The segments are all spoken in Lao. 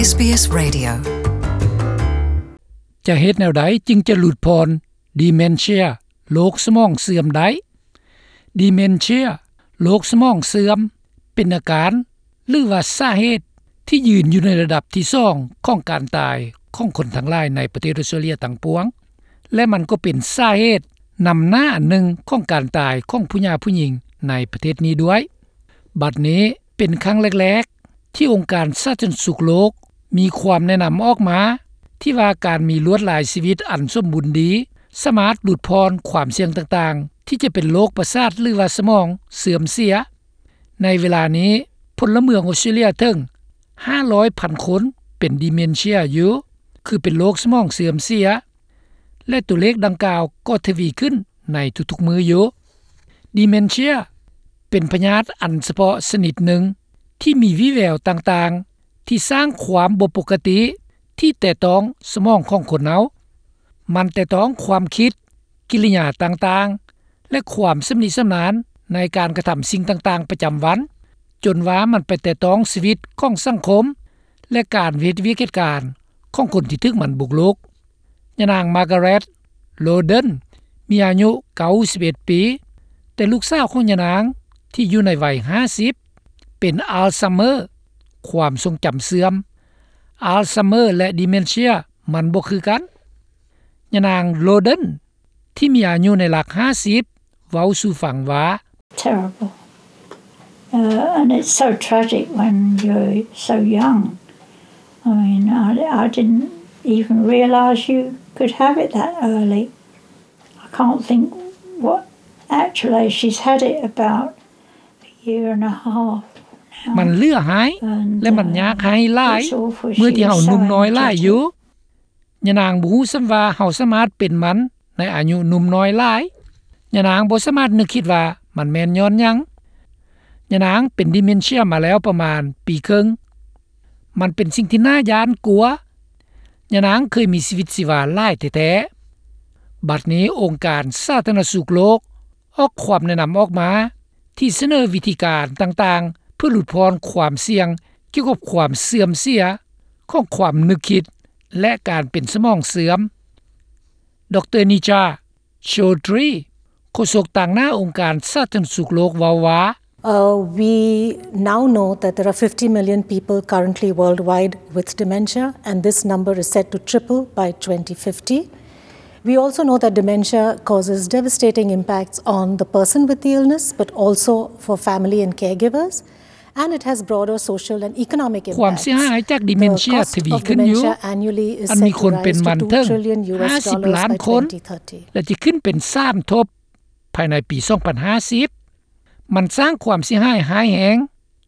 ເອສບີເອສ Radio. ຈະເຮັດແນວໃດຈຶ່ງຈະຫຼຸດຜ່ອນ Dementia ໂລກສະໝອງເສື່ອມໄດ້? Dementia ໂລກສະໝອງເສື່ອມ ເປັນອາການ ຫຼືວ່າສາເຫດທີ່ຢືນຢູ່ໃນລະດັບທີສອງຂອງການຕາຍຂອງຄົນທັງຫຼາຍໃນປະເທດອອສເຕຣເລຍທັງປວງ ແລະ ມັນກໍເປັນສາເຫດນຳໜ້າອັນໜຶ່ງຂອງການຕາຍຂອງຜູ້ຫຍ່າຜູ້ຍິງໃນປະເທດນີ້ດ້ວຍ. ບັດນີ້ເປັນຄັ້ງແລກໆ ທີ່ອົງການສາທາລະນະສຸກໂລກມີຄວາມແນະນຳອອກມາ ທີ່ວ່າການມີລວດລາຍຊີວິດອັນສົມບູນດີ ສາມາດຫຼຸດຜ່ອນຄວາມສ່ຽງຕ່າງໆ ທີ່ຈະເປັນໂລກປະສາດ ຫຼືວ່າສະໝອງເສື່ອມເສຍ. ໃນເວລານີ້ ພົນລະເມືອງອອສເຕຣເລຍເຖິງຫ້າຮ້ອຍພັນຄົນເປັນ Dementia ຢູ່ ຄືເປັນໂລກສະໝອງເສື່ອມເສຍ ແລະ ຕົວເລກດັ່ງກ່າວກໍທະວີຂຶ້ນໃນທຸກໆມື້ຢູ່. Dementia ເປັນພະຍາດອັນສະເພາະຊະນິດໜຶ່ງ ທີ່ມີວິແວວຕ່າງໆ ທີ່ສ້າງຄວາມບໍ່ປົກກະຕິທີ່ແຕະຕ້ອງສະໝອງຂອງຄົນເຮົາ. ມັນແຕະຕ້ອງຄວາມຄິດ, ກິລິຍາຕ່າງໆ ແລະ ຄວາມຊຳນິຊຳນານໃນການກະທຳສິ່ງຕ່າງໆປະຈຳວັນ, ຈົນວ່າມັນໄປແຕະຕ້ອງຊີວິດຂອງສັງຄົມ ແລະ ການເຮັດວຽກເຮັດການຂອງຄົນທີ່ຖືກມັນບຸກລຸກ. ຍານາງ Margaret Loden ມີອາຍຸເກົ້າສິບເອັດປີ, ແຕ່ລູກສາວຂອງຍານາງທີ່ຢູ່ໃນໄວຫ້າສິບ ເປັນ Alzheimer ຄວາມຊົງຈຳເສື່ອມ. Alzheimer ແລະ Dementia ມັນບໍ່ຄືກັນ. ຍານາງ Loden ທີ່ມີອາຍຸໃນຫຼັກຫ້າສິບ ເວົ້າສູ່ຟັງວ່າ Terrible. Uh, and it's so tragic when you're so young. I mean, I, I didn't even realise you could have it that early. I can't think what, actually, she's had it about a year and a half now. ມັນເຫຼືອຮ້າຍ ແລະ ມັນຍາກຮ້າຍຫຼາຍ ເມື່ອທີ່ເຮົາໜຸ່ມນ້ອຍຫຼາຍຢູ່. ຍານາງບໍ່ຮູ້ຊ້ຳວ່າເຮົາສາມາດເປັນມັນໃນອາຍຸໜຸ່ມນ້ອຍຫຼາຍ. ຍານາງບໍ່ສາມາດນຶກຄິດວ່າມັນແມ່ນຍ້ອນຫຍັງ. ຍານາງເປັນ Dementia ມາແລ້ວປະມານປີເຄິ່ງ. ມັນເປັນສິ່ງທີ່ໜ້າຢ້ານກົວ. ຍານາງເຄີຍມີຊີວິດຊີວາຫຼາຍແທ້ໆ. ບັດນີ້ອົງການສາທາລະນະສຸກໂລກ ອອກຄວາມແນະນຳອອກມາ ທີ່ສະເໜີວິທີການຕ່າງໆ ເພື່ອຫຼຸດຜ່ອນຄວາມສ່ຽງກ່ຽວກັບຄວາມເສື່ອມເສຍຂອງຄວາມນຶກຄິດ ແລະ ການເປັນສະໝອງເສື່ອມ. ດຣ. Neeja Chaudhary ໂຄສົກຕາງໜ້າອົງການສາທາລະນະສຸກໂລກເວົ້າວ່າ Uh, we now know that there are fifty million people currently worldwide with dementia, and this number is set to triple by twenty fifty. We also know that dementia causes devastating impacts on the person with the illness, but also for family and caregivers, and it has broader social and economic impacts. ຄວາມເສຍຫາຍຈາກ Dementia ທະວີຂຶ້ນຢູ່ ອັນມີຄົນເປັນມັນເຖິງຫ້າສິບລ້ານຄົນ ແລະ ຈະຂຶ້ນເປັນສາມທົບພາຍໃນປີສອງພັນຫ້າສິບ. ມັນສ້າງຄວາມເສຍຫາຍຮ້າຍແຮງ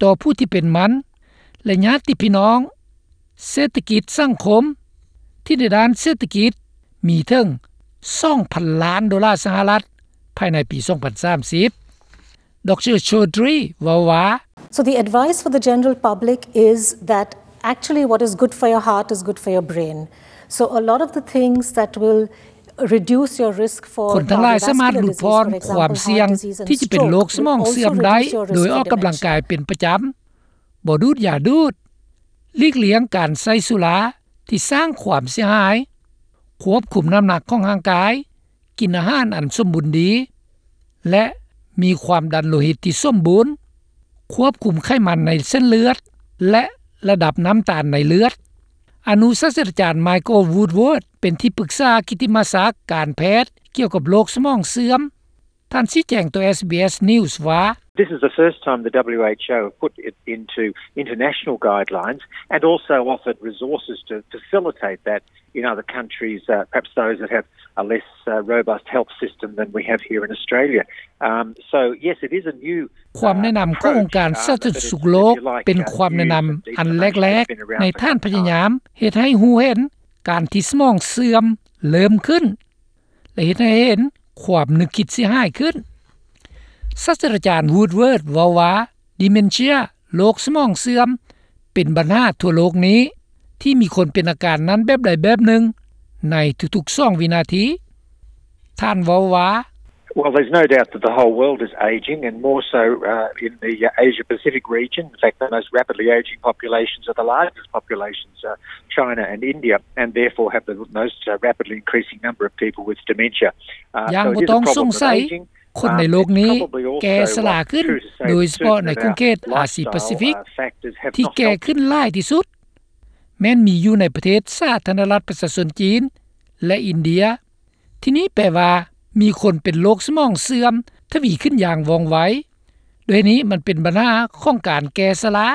ຕໍ່ຜູ້ທີ່ເປັນມັນ ແລະ ຍາດຕິພີ່ນ້ອງ, ເສດຖະກິດສັງຄົມ ທີ່ໃນດ້ານເສດຖະກິດມີເຖິງສອງພັນລ້ານໂດລາສະຫະລັດ ພາຍໃນປີສອງພັນສາມສິບ. ດຣ. Chaudhary ເວົ້າວ່າ So the advice for the general public is that actually what is good for your heart is good for your brain. So a lot of the things that will ຄົນທັງຫຼາຍສາມາດຫຼຸດຜ່ອນຄວາມສ່ຽງທີ່ຈະເປັນໂລກສະໝອງເສື່ອມໄດ້ ໂດຍອອກກຳລັງກາຍເປັນປະຈຳ, ບໍ່ດູດຢາດູດ, ຫຼີກລ່ຽງການໃຊ້ສຸລາທີ່ສ້າງຄວາມເສຍຫາຍ, ຄວບຄຸມນ້ຳໜັກຂອງຮ່າງກາຍ, ກິນອາຫານອັນສົມບູນດີ ແລະ ມີຄວາມດັນໂລຫິດທີ່ສົມບູນ, ຄວບຄຸມໄຂມັນໃນເສັ້ນເລືອດ ແລະ ລະດັບນ້ຳຕານໃນເລືອດ. ອະນຸສາດສະດາຈານ Michael Woodward ເປັນທີ່ປຶກສາກິດຕິມະສັກການແພດກ່ຽວກັບໂລກສະໝອງເສື່ອມ. ທ່ານຊີ້ແຈງຕໍ່ ເອສບີເອສ News ວ່າ This is the first time the W H O have put it into international guidelines and also offered resources to facilitate that in other countries, uh, perhaps those that have a less, uh, robust health system than we have here in Australia. Um, so, yes, it is a new ຄວາມແນະນຳຂອງອົງການສາທາລະນະສຸກໂລກ ເປັນຄວາມແນະນຳອັນແລກໆ ໃນທ່ານພະຍາຍາມເຮັດໃຫ້ຮູ້ເຫັນການທີ່ສະໝອງເສື່ອມເລີ່ມຂຶ້ນ ແລະ ເຮັດໃຫ້ເຫັນຄວາມນຶກຄິດເສຍຫາຍຂຶ້ນ. ສາດສະດາຈານ Woodward ເວົ້າວ່າ Dementia ໂລກສະໝອງເສື່ອມ ເປັນບັນຫາທົ່ວໂລກນີ້ ທີ່ມີຄົນເປັນອາການນັ້ນແບບໃດແບບໜຶ່ງໃນທຸກໆສອງວິນາທີ. ທ່ານເວົ້າວ່າ Well, there's no doubt that the whole world is aging, and more so uh, in the uh, Asia Pacific region. In fact, the most rapidly aging populations are the largest populations, uh, China and India, and therefore have the most uh, rapidly increasing number of people with dementia. Uh, ຢ່າງບໍ່ຕ້ອງສົງໄສ ຄົນໃນໂລກນີ້ແກ່ຊະລາຂຶ້ນ ໂດຍສະເພາະໃນຂົງເຂດອາຊີປາຊີຟິກ ທີ່ແກ່ຂຶ້ນຫຼາຍທີ່ສຸດ ແມ່ນມີຢູ່ໃນປະເທດສາທາລະນະລັດປະຊາຊົນຈີນ ແລະ ອິນເດຍ. ທີນີ້ແປວ່າມີຄົນເປັນໂລກສະໝອງເສື່ອມທະວີຂຶ້ນຢ່າງວ່ອງໄວ. ດ້ວຍນີ້ມັນເປັນບັນຫາຂອງການແກ່ຊະລາ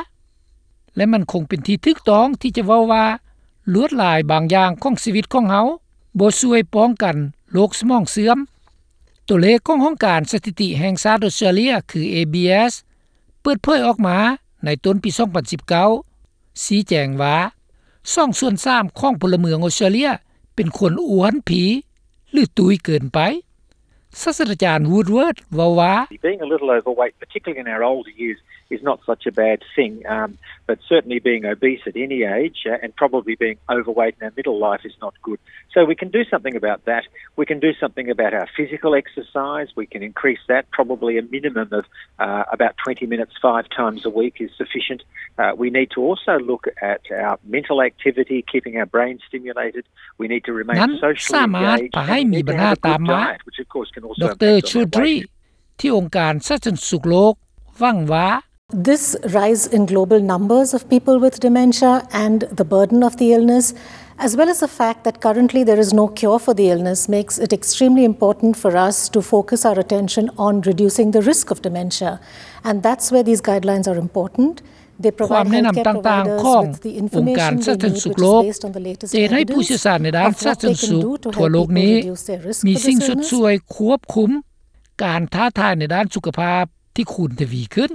ແລະ ມັນຄົງເປັນທີ່ຖືກຕ້ອງທີ່ຈະເວົ້າວ່າ ລວດລາຍບາງຢ່າງຂອງຊີວິດຂອງເຮົາບໍ່ຊ່ວຍປ້ອງກັນໂລກສະໝອງເສື່ອມ. ຕົວເລກຂອງຫ້ອງການສະຖິຕິແຫ່ງຊາດອອສເຕຣເລຍ ຄື ເອບີເອສ ເປີດເຜີຍອອກມາໃນຕົ້ນປີສອງພັນສິບເກົ້າ ຊີ້ແຈງວ່າ ສອງສ່ວນສາມຂອງພົນລະເມືອງອອສເຕຣເລຍເປັນຄົນອ້ວນພີ ຫຼື ຕຸ້ຍເກີນໄປ. ສາດສະດາຈານ Woodward ເວົ້າວ່າ Being a little overweight, particularly in our older years, is not such a bad thing, um, but certainly being obese at any age uh, and probably being overweight in our middle life is not good. So we can do something about that. We can do something about our physical exercise. We can increase that. Probably a minimum of uh, about twenty minutes five times a week is sufficient. Uh, we need to also look at our mental activity, keeping our brain stimulated. We need to remain socially engaged and we need to have a good diet, which of course can also impact on our weight. ທີ່ອົງການສາທາລະນະສຸກໂລກຫວັງວ່າ This rise in global numbers of people with dementia and the burden of the illness, as well as the fact that currently there is no cure for the illness, makes it extremely important for us to focus our attention on reducing the risk of dementia. And that's where these guidelines are important. ຄວາມແນະນຳຕ່າງໆຂອງອົງການສາທາລະນະສຸກໂລກ ຈະເຮັດໃຫ້ຜູ້ຊ່ຽວຊານໃນດ້ານສາທາລະນະສຸກທົ່ວໂລກນີ້ ມີສິ່ງຊົດຊ່ວຍຄວບຄຸມການທ້າທາຍໃນດ້ານສຸຂະພາບທີ່ຄູນທະວີຂຶ້ນ.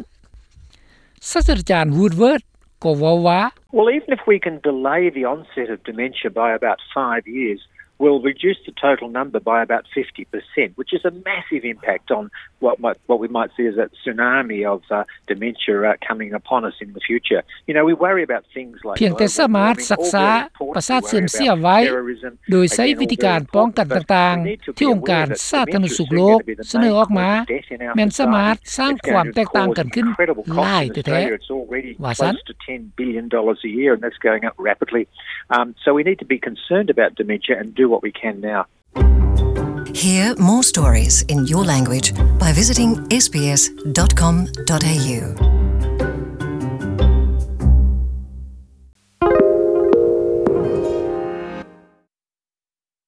ສາດສະດາຈານ Woodward ກໍເວົ້າວ່າ Well, even if we can delay the onset of dementia by about five years, we'll reduce the total number by about fifty percent, which is a massive impact on what, might, what we might see as a tsunami of uh, dementia uh, coming upon us in the future. You know, we worry about things like ພຽງແຕ່ສາມາດຊັກຊ້າປະສາດເສື່ອມເສຍໄວ້ ໂດຍໃຊ້ວິທີການປ້ອງກັນຕ່າງໆ ທີ່ອົງການສາທາລະນະສຸກໂລກສະເໜີອອກມາ ແມ່ນສາມາດສ້າງຄວາມແຕກຕ່າງກັນຂຶ້ນຫຼາຍແທ້ໆ ວ່າຊັ້ນ. Ten billion dollars a year, and that's going up rapidly. Um, so we need to be concerned about dementia and do what we can now. Hear more stories in your language by visiting sbs.com.au.